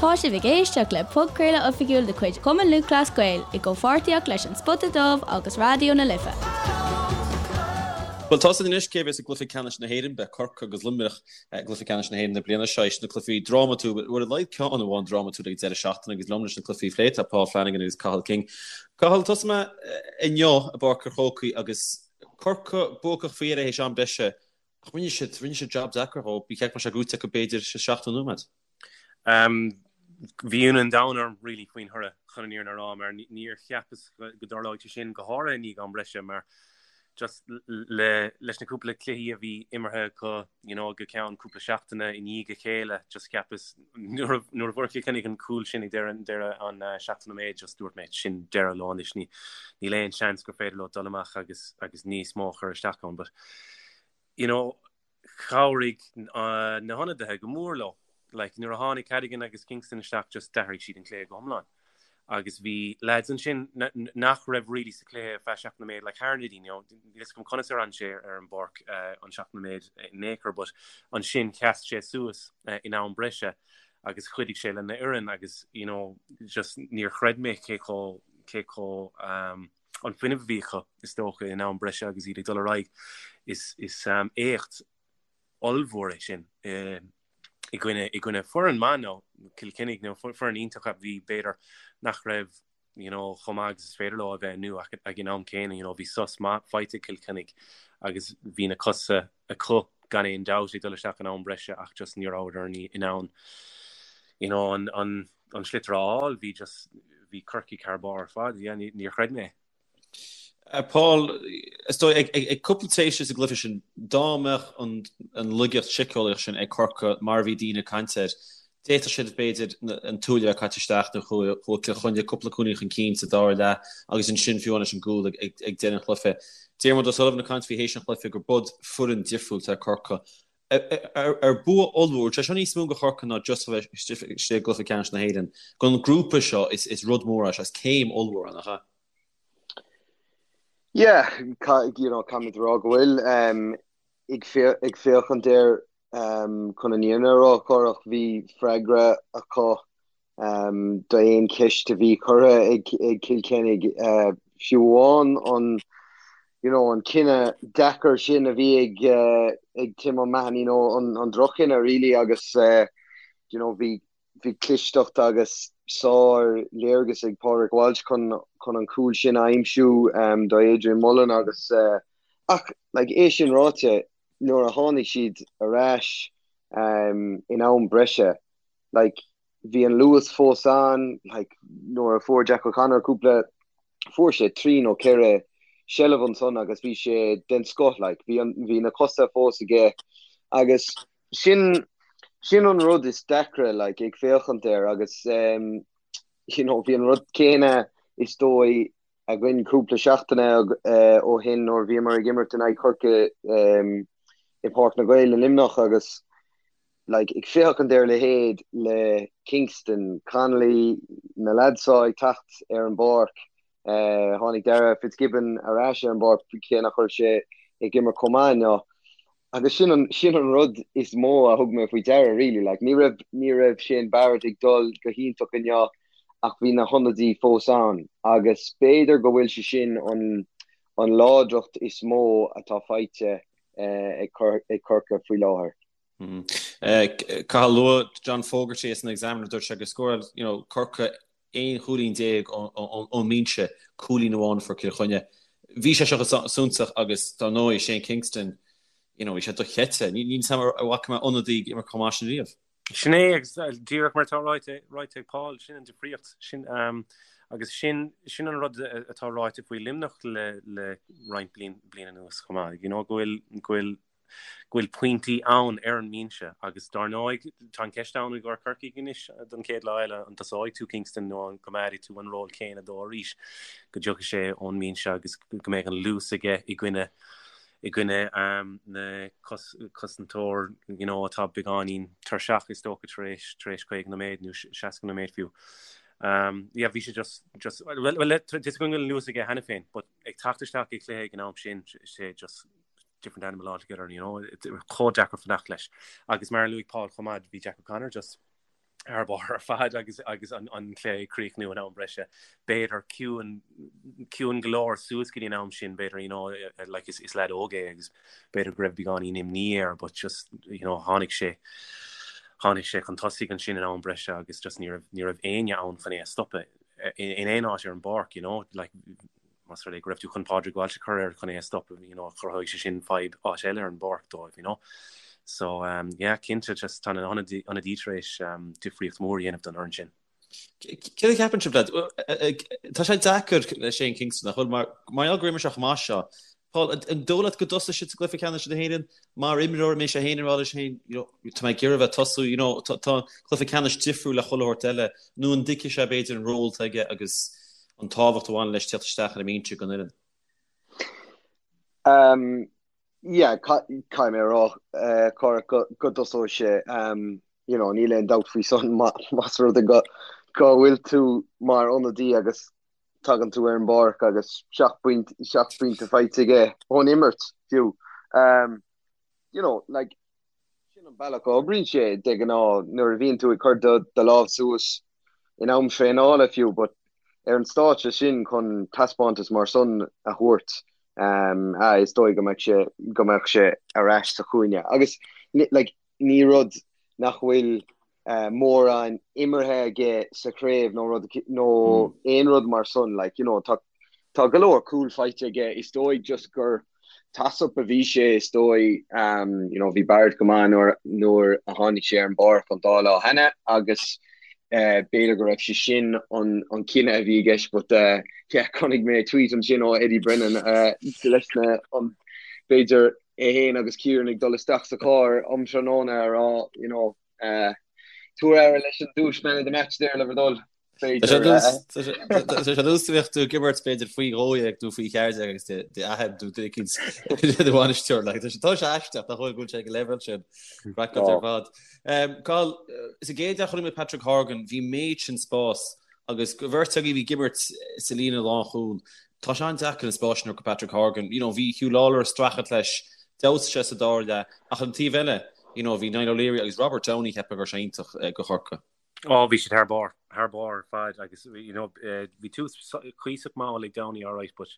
Tá sibh ag éisteacht le podchraoladh oifigiúil de chuid Chumann Lúthchleas Gael i gcomhpháirtíocht leis An Spota Dubh agus Raidió na Life. Bhuel, tá a fhios againn anois cé a bheas i gcluiche ceannais na hÉireann. Beidh Corcaigh agus Luimneach i gcluiche ceannais na hÉireann na bliana seo. Éis na cluichí drámatúil, bhuel, ar a laghad ceann amháin drámatúil ag an deireadh seachtaine agus liom leis na cluichí a phlé tá Paul Flanagan agus Cathal King. Cathal, tosóidh mé inniu i bPáirc an Chrócaigh agus Corcaigh buacach faoi dheireadh théis am breise ach rinne siad, rinne siad jab deacair dhóibh. Ba cheart go mbeadh sé gnóite acu b'fhéidir sa 70 nóiméad. Bhí ionadh an domhain orm really faoin thoradh chun an fhírinne a rá mar níor cheapas go dtarlóidh sé sin go háirithe i ndiaidh am breise mar just le leis na cúpla cluichí a bhí imeartha acu you know go ceann cúpla seachtaine i ndiaidh a chéile just cheapas nuair a nuair a fuair Cill Chainnigh an cúl sin ag deireadh deireadh an 70 nóiméad just dúirt mé sin deireadh leo anois ní níl aon seans gur féidir leo dul amach agus agus níos mó a chur isteach ann but you know chabhraigh na hionadaithe go mór leo. Like, nuair a tháinig Cadogan agus Kingston isteach just d'athraigh siad an cluiche go hiomlán. Agus bhí lads ansin nach raibh really sa chluiche ar feadh 70 nóiméad, like Harnedy, you know, níl a fhios agam conas ar fhan sé ar an bpáirc an 70 nóiméad in aon chor, but ansin sheas sé suas in am breise agus chuidigh sé lena fhoireann agus, you know, just níor chreid mé cé chomh, cé chomh, um, an fuinneamh a bhí acu, is dócha, in am breise agus iad ag dul ar aghaidh. Is éacht ollmhór é sin i gcoinne i gcoinne foireann maith nó Cill Chainnigh nó foireann iontach a bhí b'fhéidir nach raibh you know, chomh maith agus is féidir leo a bheith inniu ach ag an am céanna you know, bhí sos maith faighte ag Cill Chainnigh agus bhí na cosa acu gan aon dabht ag dul isteach in am breise ach just ní rabhadar in ann you know, an, an an sliotar a fháil, bhí just, bhí Corcaigh thar barr ar fad, yeah, níor chreid mé é. Paul, is dóigh, ag cúpla tréimhse sa gcluiche sin, dá mbeadh an laigeacht síceolaíoch sin ag Corcaigh mar a bhí daoine ag caint air, d'fhéadfadh siad, b'fhéidir, an tuaille a bheith caite isteach nó chuaigh Cill Chainnigh cúpla cúilín chun cinn sa dara leath agus ansin fiú amháin leis an gcúl ag deireadh an chluiche. Diarmuid O'Sullivan ag caint faoi théis an chluiche gur bud foireann difriúil atá ag Corcaigh. Ar bua ollmhór, tá sé seo níos mó do Chorcaigh ná just a bheith istigh i gcluiche ceannais na hÉireann. Don ghrúpa seo is rud mór é seo, is céim ollmhór é, nach ea? Yeah, you know, caithfimid a rá go bhfuil. Ag féachaint air chun an fhírinne a rá, Cárthach, bhí freagra acu d'aon cheist a bhí curtha ag Cill Chainnigh, fiú amháin an you know an cinneadh deacair sin a bhí ag ag Tim O'Mahony, you know an an droch-chinneadh really agus you know bhí bhí clisteacht agus sár léargas ag Pádraig Walsh chun chun an cúl sin a aimsiú do Adrian Mullen agus ach like é sin ráite nuair a tháinig siad ar ais in am breise like bhí an luas fós ann, like nuair a fuair Jack O'Connor cúpla, fuair sé trí nó ceithre seilbh ansan agus bhí sé den scoth, like bhí an, bhí na cosa fós aige agus sin, sin an rud is deacra like ag féachaint air agus um, you know, bhí an rud céanna is dóigh againn cúpla seachtaine ó shin nuair a bhíomar ag imirt in aghaidh Chorcaí i Páirc na nGael i Luimneach agus like ag féachaint ar a leithéid le Kingston, Connolly, na lads seo ag teacht ar an bpáirc, tháinig Darragh Fitzgibbon ar ais ar an bpáirc cé nach raibh sé ag imirt chomh maith inniu. Agus sin an, sin an rud is mó a thug mé faoi deara really, like ní raibh, ní raibh Shane Barrett ag dul go hiontach inniu ach bhí na hionadaí fós ann agus b'fhéidir go bhfuil sé sin an, an láidreacht is mó atá faighte ag Corcaigh faoi láthair. Cathal luaigh John Fogarty as an Examiner dúirt sé gur scóráil you know, Corcaigh 11 chúilín ón mbinse, cúilín amháin a fuair Cill Chainnigh. Bhí sé seo suntasach agus dar ndóigh Shane Kingston, you know, bhí sé dochreidte. Níl a fhios agam an bhfaca mé ionadaí ag imirt chomh maith sin riamh. Sin é agus díreach mar atá ráite, ráite ag Paul, sin an difríocht, sin agus sin, sin an rud atá ráite faoi Luimneach le, le roinnt bliain, bliain anuas chomh maith, you know, go bhfuil, go bhfuil go bhfuil pointí ann ar an mbinse agus dar ndóigh tá an ceist ann i gcomhair Corcaigh anois don chéad lá eile an dtosóidh tú Kingston nó an gcoimeádfaidh tú an ról céanna dó arís go dtiocfaidh sé ón mbinse agus go mbeidh an luas aige i gcoinne i gcoinne na cosantóir you know atá beagáinín tuirseach is dócha tar éis tar éis 50 nóiméad nó 60 nóiméad fiú. Um, yeah, bhí sé just just well, well, tá a fhios againn go bhfuil an luas aige cheana féin, but ag teacht isteach i gcluiche ag an am sin sé just different animal altogether, you know, chomh deacair fanacht leis. Agus mar a luaigh Paul chomh maith, bhí Jack O'Connor just. Thar barr ar fad agus agus an an cluiche ag críochnú in am breise. B'fhéidir ciúin ciúin go leor suas go dtí an am sin b'fhéidir you know like is is leaid óg é agus b'fhéidir go raibh beagáinín imní air but just you know tháinig sé tháinig sé chun tosaigh ansin in am breise agus just ní raibh ní raibh éinne ann chun é a stopadh in in aon áit ar an bpáirc you know like más rud é go raibh tú chun Pádraig Walsh a chur air chun é a stopadh, you know, chruthódh sé sin fadhb áit eile ar an bpáirc dóibh, you know. So, um, yeah, cinnte, just tá na hionadaí tar éis um, difríocht mhór a dhéanamh don fhoireann sin. Céard a cheapann sibh, lads? Tá sé deacair le Shane Kingston, nach bhfuil, mar mar gheall gur imir sé chomh maith seo. Paul, an dóigh leat go dtosóidh sé sa gcluiche ceannais na hÉireann? Mar imreoir, an mbeidh sé féin ag rá leis féin, you know, tá mé ag iarraidh a bheith ag tosú, you know, tá tá cluiche ceannais difriúil le chuile shórt eile, nó an dtuigfidh sé b'fhéidir an ról atá aige agus an tábhacht a bhaineann leis teacht isteach ar an mbinse don fhoireann? Um, yeah, caithfidh mé a rá, uh, Cárthach, go, go dtosóidh sé, um, you know, níl aon dabht faoi san más rud é go, go bhfuil tú mar ionadaí agus tagann tú ar an bpáirc agus 7 bpointe faighte aige ón imirt fiú. Um, you know, like, Sin an bealach a oibríonn sé de ghnáth nuair a bhíonn tú ag cur do do lámh suas in am traenála fiú but ar an stáitse sin chun taispeántas mar san a thabhairt ah is dóigh go mbeadh sé go mbeadh sé ar ais sa chúinne agus like ní rud nach bhfuil mórán imeartha aige sa chraobh nó rud nó aon rud mar san like you know tá tá go leor cúl faighte aige is dóigh just gur toss-up a bhí sé is dóigh you know bhí Barrett go maith nuair nuair a tháinig sé ar an bpáirc an dá lá cheana agus b'fhéidir go raibh sé sin an an cinneadh a bhí i gceist but yeah chonaic mé tweet ansin ó Eddie Brennan leis na an b'fhéidir é féin agus Kieran ag dul isteach sa charr um tráthnóna a rá you know tabhair aire leis an duais man of the match there le bhur dtoil. Tá sé ar nós bheadh tú ag imirt b'fhéidir faoi 12 nó faoi 14 agus d'athair nó duine éicint do bhainisteoir. Tá sé aisteach nach bhfuil go bhfuil sé ag an leibhéal sin. Craiceáilte ar fad. Cathal, sa gcéad leath chonaic mé Patrick Horgan, bhí méid sin spás agus do bheirt agaibh a bhí ag imirt sa líne lánchúil. Tá sé an-deacair an spás sin a thabhairt do Patrick Horgan. You know, bhí Huw Lawlor ag streachailt leis, d'fheabhsaigh sé sa dara leath, ach an taobh eile, you know, bhí Niall O'Leary agus Robert Downey cheapfá go raibh sé iontach do Chorcaigh. Ó, bhí siad thar barr, thar barr ar fad agus you know, bhí tús cuíosach mall ag Downey alright but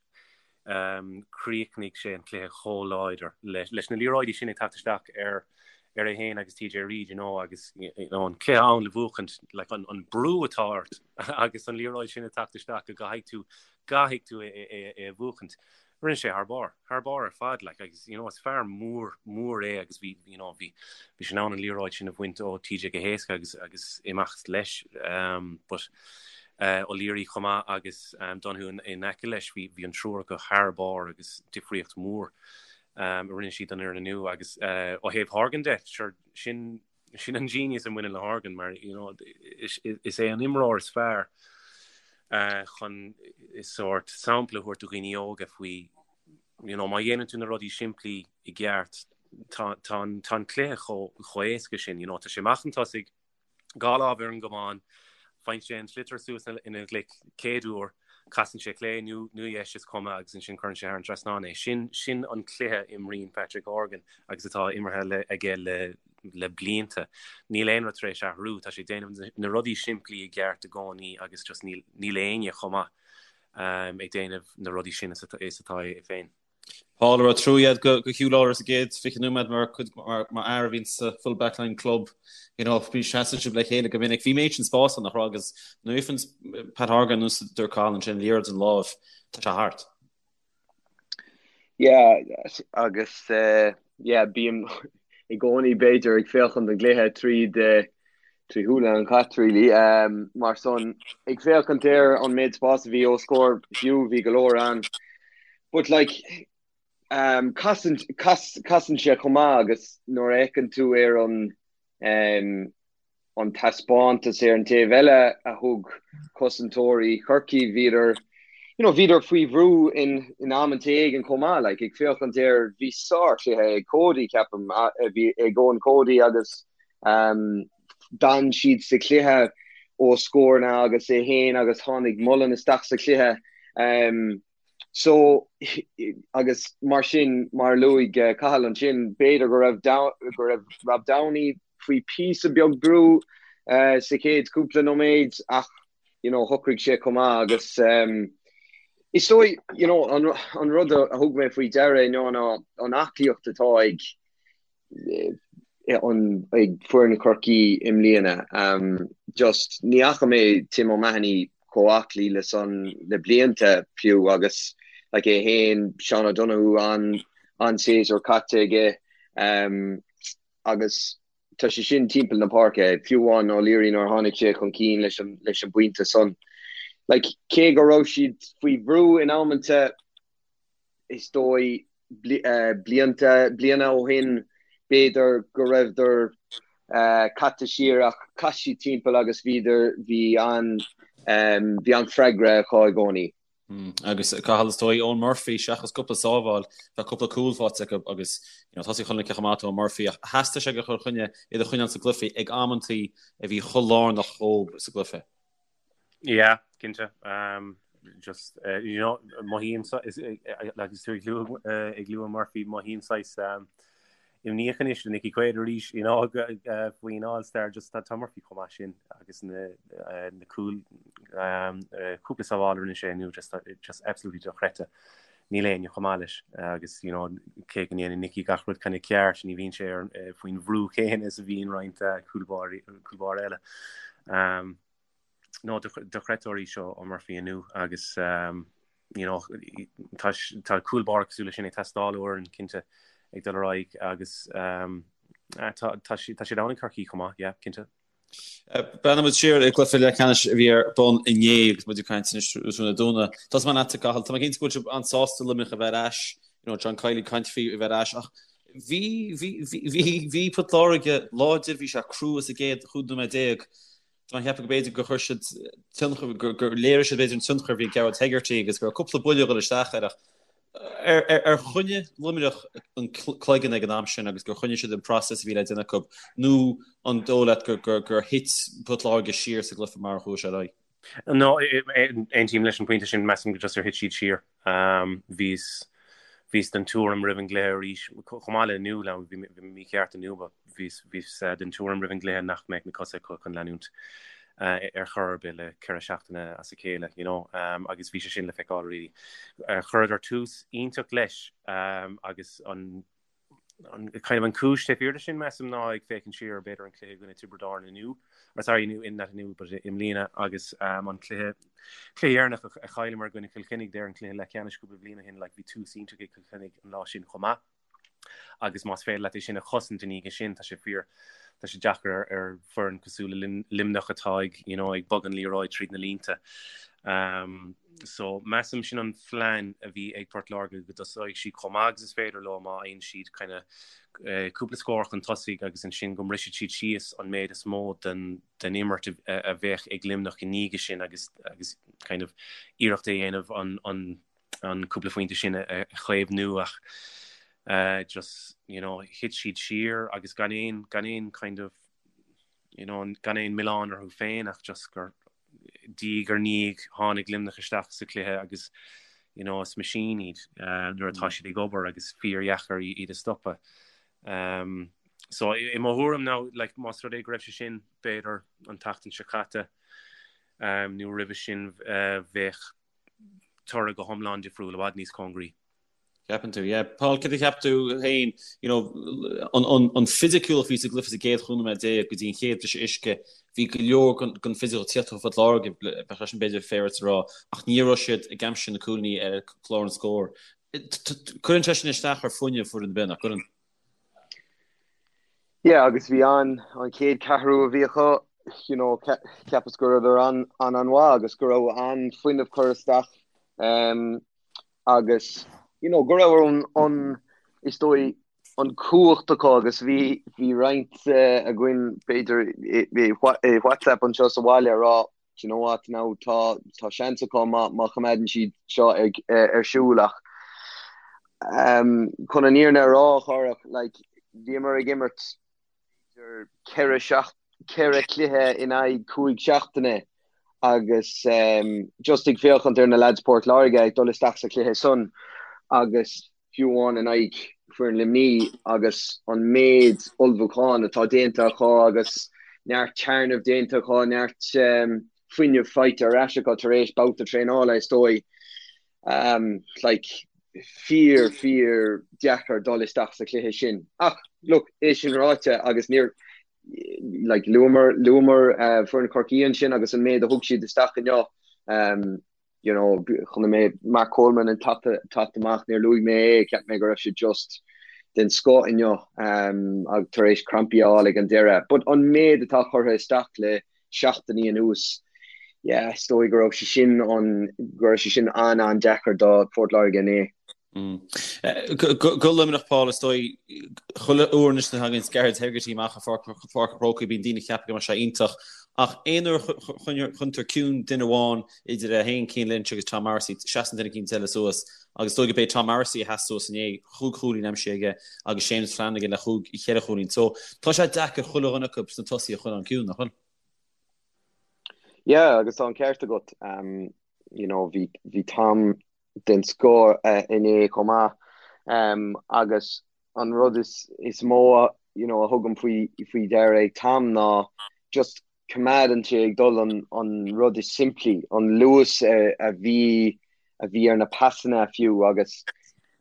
um, chríochnaigh sé an cluiche chomh láidir leis, leis na liathróidí sin ag teacht isteach ar ar é féin agus TJ Reid, you know, agus you know, an cluiche ann le buachaint, like, an, an brú atá ort agus an liathróid sin ag teacht isteach go gcaithfidh tú, gcaithfidh tú é, é, é a bhuachaint. Rinne sé thar barr, thar barr ar fad, like, agus, you know, is fear mór, mór é agus bhí, you know, bhí, bhí sé in ann an liathróid sin a bhaint ó TJ go héasca agus, agus imeacht leis, um, but, uh, O'Leary chomh maith agus, um, Donoghue in, in aice leis, bhí, bhí an triúr acu thar barr agus difríocht mhór, um, a rinne siad don fhoireann inniu agus, uh, ó thaobh Horgan de, sure, sin, Sin an genius a bhaineann le Horgan mar you know, is, is é an imreoir is fearr uh, chun sórt sampla a thabhairt do dhaoine óga faoi you know, má dhéanann tú na rudaí simplí i gceart tá, tá, an, tá an cluiche chomh, chomh éasca sin you know, tá sé amach chun tosaigh dhá lámh ar an gcamán faigheann sé an sliotar suas ina ghlaic céad uair casann sé clé nó nó dheis is cuma agus ansin cuireann sé thar an trasnán é. Sin sin an cluiche a imríonn Patrick Horgan agus atá imeartha le, aige le le blianta. Níl aon rud tar éis athrú, tá sé ag déanamh na rudaí simplí i gceart i gcónaí agus just níl níl éinne chomh maith um, ag déanamh na rudaí sin is atá, is atá é féin. Paul an raibh trua agat do Huw Lawlor sa gcéad 20 nóiméad mar cuid mar mar fhear a bhíonn sa full back line club you know bhí seasann sibh le chéile go minic bhí méid sin spás ann nach raibh agus nuair a fhaigheann Pat Horgan nós a dúirt Cathal ansin liathróid ina láimh tá sé thart. Yeah, agus uh, yeah, bím i gcónaí b'fhéidir ag féachaint don gcluiche tríd uh, trí shúile an chait really. Um, mar san ag féachaint ar an méid spás a bhí os comhair Hugh bhí go leor ann. But like um, casann, cas, casann sé chomh maith agus nuair a fheiceann tú ar an um, an taispeántas ar an taobh eile a thug cosantóirí Chorcaí, bhíodar, you know, bhíodar faoi bhrú in, in amanta éigin chomh maith, like, ag féachaint ar, bhí sárchluiche ag Cody, ceapaim, bhí ag Eoin Cody agus um, d'fhan siad sa chluiche ó scóranna agus é féin agus tháinig Mullen isteach sa chluiche. Um, So, agus mar sin, mar a luaigh Cathal ansin, b'fhéidir go raibh go raibh Rob Downey faoi píosa beag brú. sa chéad cúpla nóiméad ach you know shocraigh sé chomh maith agus is dóigh you know an rud a thug mé faoi deara inniu ná an aclaíocht atá ag an ag foireann Chorcaí i mbliana. Just ní fhaca mé Tim O'Mahony chomh aclaí le san le blianta fiú agus like é féin, Seán O'Donoghue an an séasúr caite aige agus tá sé sin timpeall na páirce, fiú amháin O'Leary nuair a tháinig sé chun cinn leis an leis an bpointe san. Like cé go raibh siad faoi bhrú in amanta is dóigh blianta, bliana ó shin b'fhéidir go raibheadar caite siar ach chas siad timpeall agus bhíodar, bhí an, bhí an freagra acu i gcónaí. Agus Cathal, is dóigh, Eoin Murphy, seachas cúpla sábháil, tá cúpla cúl faighte acu agus you know, tosaí chun cinn chomh maith Eoin Murphy ach theastaigh sé go Chill Chainnigh iad a choinneáil sa gcluiche ag amantaí a bhí chomh lárnach dhóibh sa gcluiche. Yeah, cinnte. Um, just, uh, you know, mothaím agus tú ag lua ag lua Murphy mothaím saghas um, imníoch anois le Nicky Quaid arís you know, uh, faoin All-Star just tá tá Murphy chomh maith sin agus na, uh, na cúl um, uh, cúpla sábháil a rinne sé inniu just, just absolutely dochreidte. Níl éinne chomh maith leis agus you know, cé go ndéanann Nicky gach rud kind of ceart ní bhíonn sé ar, uh, faoin bhrú céanna is a bhíonn roinnt uh, cúl báire eile. Um, no dochreidte arís ó Murphy inniu agus um, you know, tá, tá cúl báire cosúil leis sin ag teastáil ó fhoireann cinnte ag dul ar aghaidh agus um, tá, tá, tá siad ann ag Corcaigh chomh maith, yeah, cinnte. Breathnóidh muid siar ar chluiche leathcheannais a bhí ar bun inné agus muid ag caint anois tráthnóna Dé Domhnaigh. Tosóidh mé leatsa Cathal, tá mé cinnte go bhfuil sibh an-sásta Luimneach a bheith ar ais, you know, John Kiely ag caint faoi a bheith ar ais ach bhí, bhí, bhí, bhí, bhí Port Láirge láidir, bhí sé crua sa gcéad 15 nóiméad. Tá mé ag ceapadh go b'fhéidir gur chuir siad tionchar, gur, gur léirigh siad b'fhéidir an tionchar a bhí ag Gearóid Hegarty agus go raibh cúpla buille ag dul isteach air ach Ar choinnigh Luimneach an cloigeann ag an am sin agus gur choinnigh siad an process a bhí le déanamh acu nó an dóigh leat gur thit Port Láirge siar sa gcluiche mar a chuaigh sé ar aghaidh? No, aontaím leis an bpointe sin. Measaim go just ar thit siad siar. Bhíos bhíos den tuairim roimh an gcluiche arís, chomh maith le inniu, bhí mé mícheart inniu, but bhíos den tuairim roimh an gcluiche nach mbeadh na cosa acu chun leanúint ar chor ar bith le 4 seachtaine as a chéile, you know, agus bhí sé sin le feiceáil really. Chuireadar tús iontach leis agus an an kind of an cúis taobh thiar de sin measaim ná ag féachaint siar ar b'fhéidir an cluiche i gcoinne Tiobraid Árann inniu, or sorry inniu, not inniu but i mbliana agus an cluiche cluiche dheireanach a chailleamar i gcoinne Chill Chainnigh there an cluiche leathcheannais cúpla bliain ó shin like bhí tús iontach ag Cill Chainnigh an lá sin chomh maith. agus más féidir leat é sin a chosaint ina dhiaidh sin, tá sé fíor, tá sé deacair ar, ar foireann cosúil le Luimneach atá ag, you know, ag bogadh an liathróid tríd na línte. Um, so measaim sin an phlean a bhí ag Port Láirge go dtosóidh siad chomh maith agus is féidir leo má fhaigheann siad kind of, uh, cúpla scór chun tosaigh agus ansin go mbrisfidh siad síos an méid is mó den, den imirt a, a bheadh ag Luimneach i ndiaidh sin agus, agus kind of iarracht a dhéanamh an, an an cúpla phointe sin a chaomhnú ach just you know thit siad siar agus gan aon gan aon kind of you know gan aon milleán orthu féin ach just gur diaidh ar ndiaidh tháinig Luimneach isteach sa chluiche agus you know is machine iad uh, nuair atá siad ag obair agus fíordheacair iad a stopadh. Um, so i mo thuairim now like más rud é go raibh sé sin b'fhéidir an tseachtain seo caite um, nó roimhe sin uh, bheadh toradh go hiomlán difriúil, i bhfad níos cóngaraí. Ceapann tú, yeah. Paul, cad a cheap tú féin, you know, an, an, an fisiciúlacht a bhí sa gcluiche sa gcéad 15 nóiméad go dtí an chéad briseadh uisce, bhí go leor den, den fisiciúlacht ag tíocht ó Phort Láirge, bheadh sé sin b'fhéidir fair a rá, ach ní raibh siad ag aimsiú na cúilíní ar chlár an scóir. Cuireann sé sin isteach ar fuinneamh foireann ar bith, nach gcuireann? Yeah, agus bhí an an chéad ceathrú a bhí acu, you know, cheapas go rabhadar an an an-mhaith agus go raibh an fuinneamh curtha isteach um, agus you know, go raibh an, an is dóigh an cumhacht acu agus bhí bhí roinnt uh, againn b'fhéidir i, i, i WhatsApp anseo sa bhaile a rá Do you know what, now tá tá seans acu má má choimeádann siad seo ag ar siúl ach um, chun an fhírinne a rá a Chárthach, like, bhíomar ag imirt b'fhéidir ceithre seacht ceithre chluiche in aghaidh cúig seachtaine agus um, just ag féachaint ar na lads Port Láirge ag dul isteach sa chluiche san agus fiú amháin in aghaidh foireann Luimní agus an méid ullmhúcháin atá déanta acu agus. neart téarnaimh déanta acu, neart fuinneamh faighte ar ais acu tar éis babhta traenála is dóigh. Like, fíor, fíor deacair dul isteach sa chluiche sin. Ach, look, é sin ráite agus níor, like, luamar, luamar foireann Chorcaí ansin agus an méid a thug siad isteach inniu. You know, chonaic mé Mark Coleman ag teacht amach, níor luaigh mé é, cheap mé go raibh sé just den scoth inniu ag tar éis crampaí a fháil ag an deireadh. But an méid atá curtha isteach le seachtainí anuas, yeah, is dóigh go raibh sé sin an, go raibh sé sin an-an-deacair do Phort Láirge inné. Go Luimneach, Paul, is dóigh, chuile uair anois a thagann Gearóid Hegarty amach i Pháirc an Chrócaigh bíonn daoine ag ceapadh go mbeidh sé iontach ach aon uair a choinnítear ciúin duine amháin idir é féin, Cian Lynch agus Tom Morrissey, seasann duine eicínt eile suas agus is dóigh go b'é Tom Morrissey a sheas suas inné, chúig chúilín aimsithe aige agus Séamus Flanagan le chúig, cheithre chúilín. So tá sé deacair chuile dhuine acu sna tosaithe a choinneáil ciúin, nach bhfuil? Yeah, agus tá an ceart agat. You know, bhí, bhí Tom den scoth inné chomh maith. Agus an rud is, is mó, you know, a thugaim faoi, faoi deara ag Tom ná just coimeádann sé ag dul an, an rud is simplí, an luas a bhí, a bhí ar na pasanna fiú agus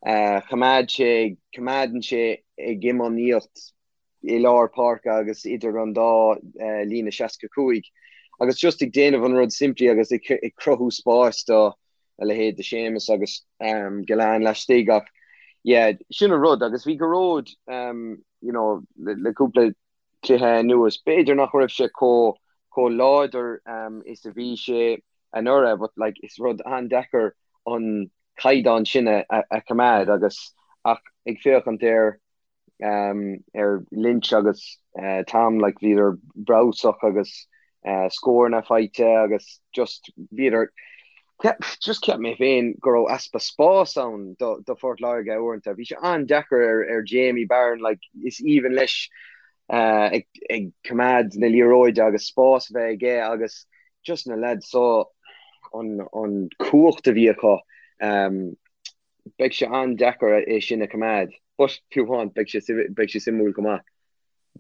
choimeád sé, coimeádann sé ag iomaíocht i lár páirce agus idir an dá líne 65 agus just ag déanamh an rud simplí agus ag cruthú spáis do a leithéid de Séamus agus Gillane laistigh ach yeah sin an rud agus bhí Gearóid you know le cúpla cluiche anuas b'fhéidir nach raibh sé chomh chomh láidir is a bhí sé anuraidh but like is rud an-deacair an caighdeán sin a choimeád agus ach ag féachaint ar ar Lynch agus Tom, like bhíodar breabhsach agus scóranna faighte agus just bhíodar just cheap mé féin go raibh easpa spás ann do do Phort Láirge uaireanta. Bhí sé an-deacair ar ar Jamie Barron like is aoibhinn leis ag ag coimeád na liathróide agus spás a bheith aige agus just na lads so an an cumhacht a bhí acu Beidh sé an-deacair é sin a choimeád, but fiú amháin, beidh sé beidh sé suimiúil go maith.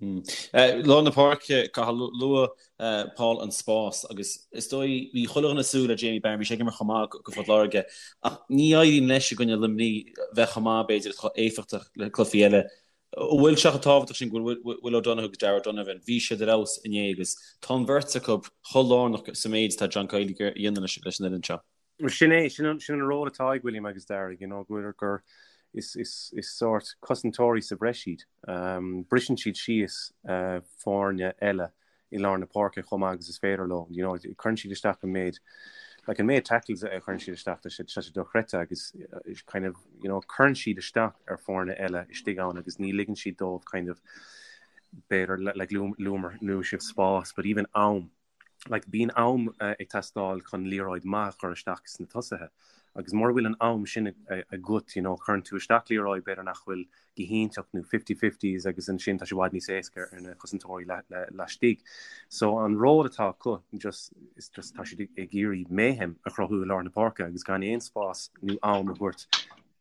Lár na páirce, Cathal, luaigh Paul an spás agus is dóigh, bhí chuile dhuine ag súil le Jamie Barron, bhí sé ag imirt chomh maith go Phort Láirge ach ní éiríonn leis i gcoinne Luimnigh bheith chomh maith b'fhéidir is chomh éifeachtach le cluichí eile. An bhfuil sé chomh tábhachtach sin go bhfuil Will O'Donoghue agus Darragh O'Donovan, bhí siad ar fheabhas inné agus tá an bheirt acu chomh lárnach sa méid atá John Kiely a dhéanamh leis an fhoireann seo. Sin é, sin an, sin an ról atá ag William agus Darragh, you know, go bhfuil gur is, is, is sórt cosantóirí sa bhreis iad. Um, briseann siad síos uh, foirne eile i lár na páirce chomh maith agus is féidir leo, you know, cuireann siad isteach an méid, like an méid tackles a chuireann siad isteach, tá sé, tá sé dochreidte agus uh, kind of, you know, cuireann siad isteach ar foirne eile istigh ann agus ní ligeann siad dóibh kind of b'fhéidir like luamar luaigh sibh spás, but even am like bíonn am ag teastáil chun liathróid maith a chur isteach sna tosaithe agus mura bhfuil an am sin agat you know cuireann tú isteach liathróid b'fhéidir nach bhfuil go hiontach nó fifty-fifties agus ansin tá sé i bhfad níos éasca ar na cosantóirí laistigh. So an ról atá acu just is just tá siad ag iarraidh mayhem a chruthú i lár na páirce agus gan aon spás nó am a thabhairt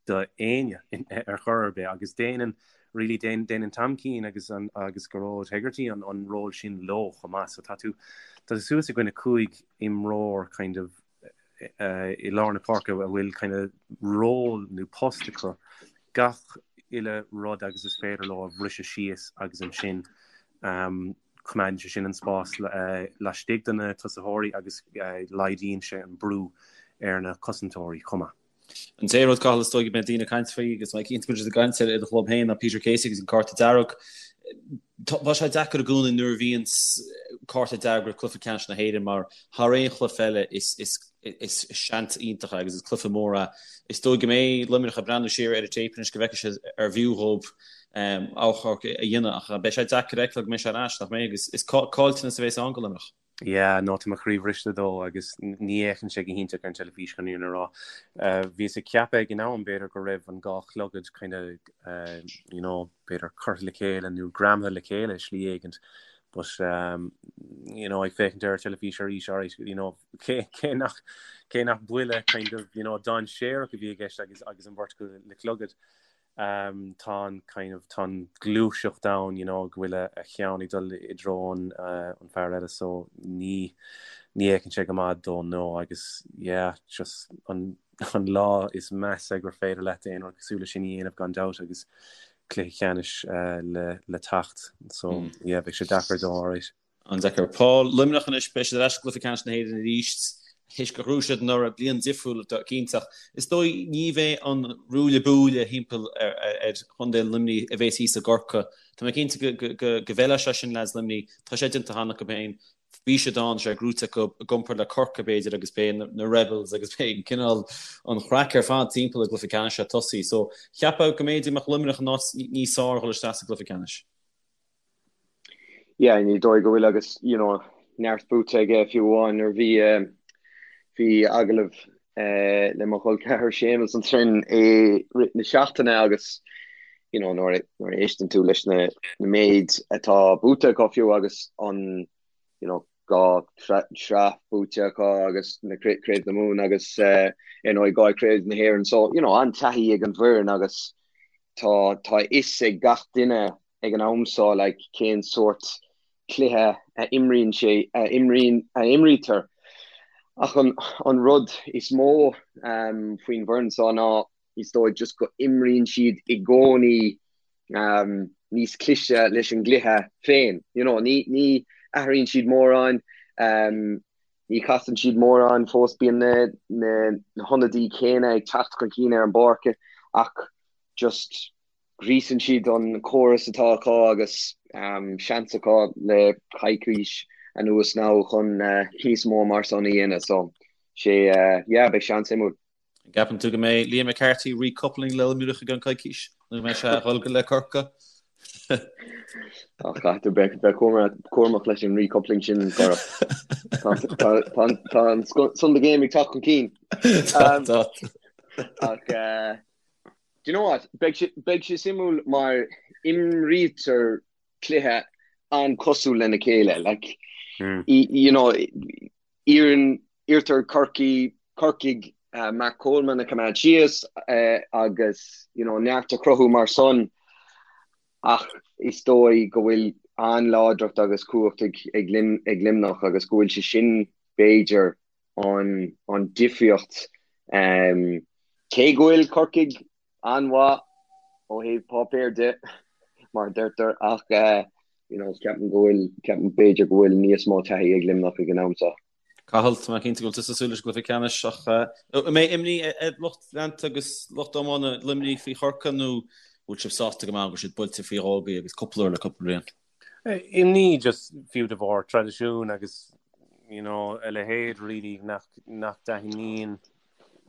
do éinne ar chor ar bith agus déanann really déanann Tom Keane agus an agus Gearóid Hegarty an an ról sin leo chomh maith so tá tú tá tú suas i gcoinne 5 imreoir kind of uh, i lár na páirce a bhfuil kind of ról nó post acu gach uile rud agus is féidir leo a bhriseadh síos agus ansin um, coimeádann sé sin an spás uh, laistigh de na tosaitheoirí agus uh, laghdaíonn sé an brú ar na cosantóirí chomh maith. An t-aon rud, Cathal, is dóigh go mbeidh daoine ag caint faoi agus mé cinnte go bhfuil siad ag caint air i do chlub féin ná Peter Casey agus an cárta dearg. Tá sé deacair i gcónaí nuair a bhíonn cárta dearg roimh cluiche ceannais na hÉireann mar thar aon chluiche eile is is seans iontach é agus is cluiche mór é. Is dóigh go mbeidh Luimneach ag breathnú siar ar an téip anois go bhfeicfidh siad arbh fhiú dhóibh achomharc a dhéanamh ach beidh sé deacair a fheiceáil go mbeidh sé ar ais, nach mbeidh? Agus is caillteanas a bheas ann do Luimneach. Yeah, no, tá mo chroí bhriste dó agus ní fhéachann sé go hiontach ar an teilifís chun an fhírinne a rá. Bhíos ag ceapadh ag an am b'fhéidir go raibh an dhá chlogad kind of, you know, b'fhéidir curtha le chéile nó greamaithe le chéile i slí éigint but, you know, ag féachaint ar an teilifís arís, alright, you know, cé, cé nach, cé nach buille kind of, you know, dainséarach a bhí i gceist agus, agus an bheirt acu le clogad. Tá an kind of, tá an gluaiseacht ann, you know, go bhfuil a cheann ag dul i dtreo an, an fear eile so ní, ní fhéachann sé go maith dó no agus yeah, just an, an lá is measa gur féidir leat aon rud cosúil leis sin a dhéanamh gan dabht agus cluiche ceannais le, le teacht so yeah, beidh sé deacair dó alright. An-deacair. Paul, Luimneach anois, beidh siad ar ais i gcluiche ceannais na hÉireann arís théis gur ghnóthaigh siad anuraidh, bliain difriúil cinnte ach is dóigh ní bheidh an ruaille buaille thimpeall ar chontae Luimnigh a bheas thíos i gCorcaigh. Tá mé cinnte go bhfeilfeadh sé sin leaids Luimnigh, tá sé déanta cheana acu féin, bhí siad ann, sé gnóite acu i gcomparáid le Corcaigh b'fhéidir agus beidh na Rebels agus beidh an cineál an chraic ar fad timpeall an gcluiche ceannais ag tosaí. So cheapfá go mb'fhéidir go mbeadh Luimneach in áit níos fearr dhul isteach sa gcluiche ceannais. Yeah, ní dóigh go bhfuil agus you know, neart buaite aige fiú amháin nuair bhí bhí agallamh eh, le mo chol ceathar Séamus ansin i rith na seachtaine agus you know, nuair nuair a éisteann tú leis na na méid atá buaite acu fiú agus an you know, 2 shraith buaite acu agus na Craobh na Mumhan agus ar ndóigh 2 Craobh na hÉireann. So, you know, an-taithí ag an bhfoireann agus tá tá a fhios ag gach duine ag an am seo like cén sórt cluiche a imríonn sé a imríonn a imrítear. Ach an an rud is mó um, faoin bhfoireann seo ná is dóigh just go imríonn siad i gcónaí um, níos cliste leis an gcluiche féin. You know, ní, ní athraíonn siad mórán, um, ní chasann siad mórán fós bíonn na, na, na hionadaí céanna ag teacht chun cinn ar an bpáirc ach just gríosann siad an córas atá acu agus um, seans acu le coicís anuas now chun uh, níos mó mar san a dhéanamh so sé uh, yeah, beidh seans suimiúil. An gceapann tú go mbeidh Liam McCarthy recoupling le Luimneach i gceann coicís nó go mbeidh sé ag dul le Corcaigh? Ach caithfidh tú bheith cúramach leis an recoupling sin Gora. Tá an Sunday game ag teacht chun cinn. Tá. Ach do you know what? Beidh sé suimiúil mar imrítear cluiche an-cosúil lena chéile. Like, you know, Iarrann, iarrtar Corcaigh, Corcaigh Mark Coleman a choimeád síos agus you know neart a chruthú mar san ach is dóigh go bhfuil an-láidreacht agus cumhacht ag ag ag Luimneach agus go bhfuil sé sin b'fhéidir an an difríocht cé go bhfuil Corcaigh an-mhaith ó thaobh páipéir de, mar a deirtear, ach you know, ceapaim go bhfuil, ceapaim b'fhéidir go bhfuil níos mó taithí ag Luimneach ag an am seo. Cathal, tá mé cinnte go bhfuil tusa ag súil leis an gcluiche ceannais ach an mbeidh imní ar lucht leanta agus lucht iomána Luimnigh faoi Chorcaigh nó bhfuil sibh sásta go maith go bhfuil siad buailte faoi dhó agaibh agus cúpla uair le cúpla bliain? Imní just fiú de bharr traidisiún agus you know a leithéid really nach nach dtaitníonn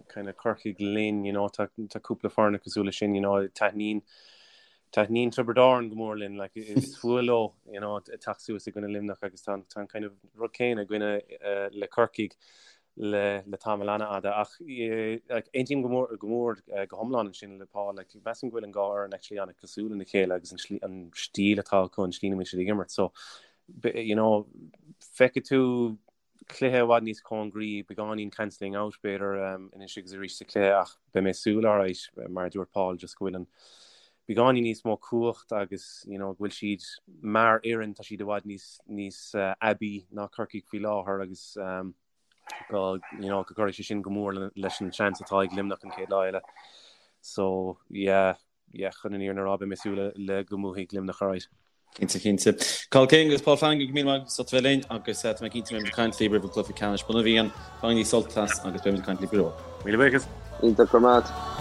kind of Corcaigh linn you know tá tá cúpla foirne cosúil leis sin you know taitníonn taitníonn Tiobraid Árann go mór linn like is fuath leo you know teacht suas i gcoinne Luimneach agus tá tá an kind of rud céanna againne uh, le Corcaigh le le tamall an-fhada ach like aontaím go mór go mór go hiomlán ansin le Paul like measaim go bhfuil an dhá fhoireann actually an-cosúil lena chéile agus an slí an stíl atá acu an slí ina bhfuil siad ag imirt so you know feicfidh tú cluiche i bhfad níos cóngaraí beagáinín cancelling out b'fhéidir um, anois agus arís sa chluiche ach beidh mé ag súil alright mar a dúirt Paul just go bhfuil an beagáinín níos mó cumhacht agus you know go bhfuil siad mar fhoireann tá siad i bhfad níos níos uh, aibí ná Corcaigh faoi láthair agus um, go you know go gcuirfidh sé sin go mór leis an seans atá ag Luimneach an chéad lá eile. So yeah yeah chun an fhírinne a rá beidh mé ag súil le, le go mbuafaidh Luimneach alright. Cinnte, cinnte. Cathal King agus Paul Flanagan, go raibh míle maith agat as ucht a bheith linn agus tá mé cinnte go mbeimid ag caint libh roimh an gcluiche ceannais. Bainigí sult as agus beimid ag caint libh go luath. Míle buíochas. Iontach, go raibh maith.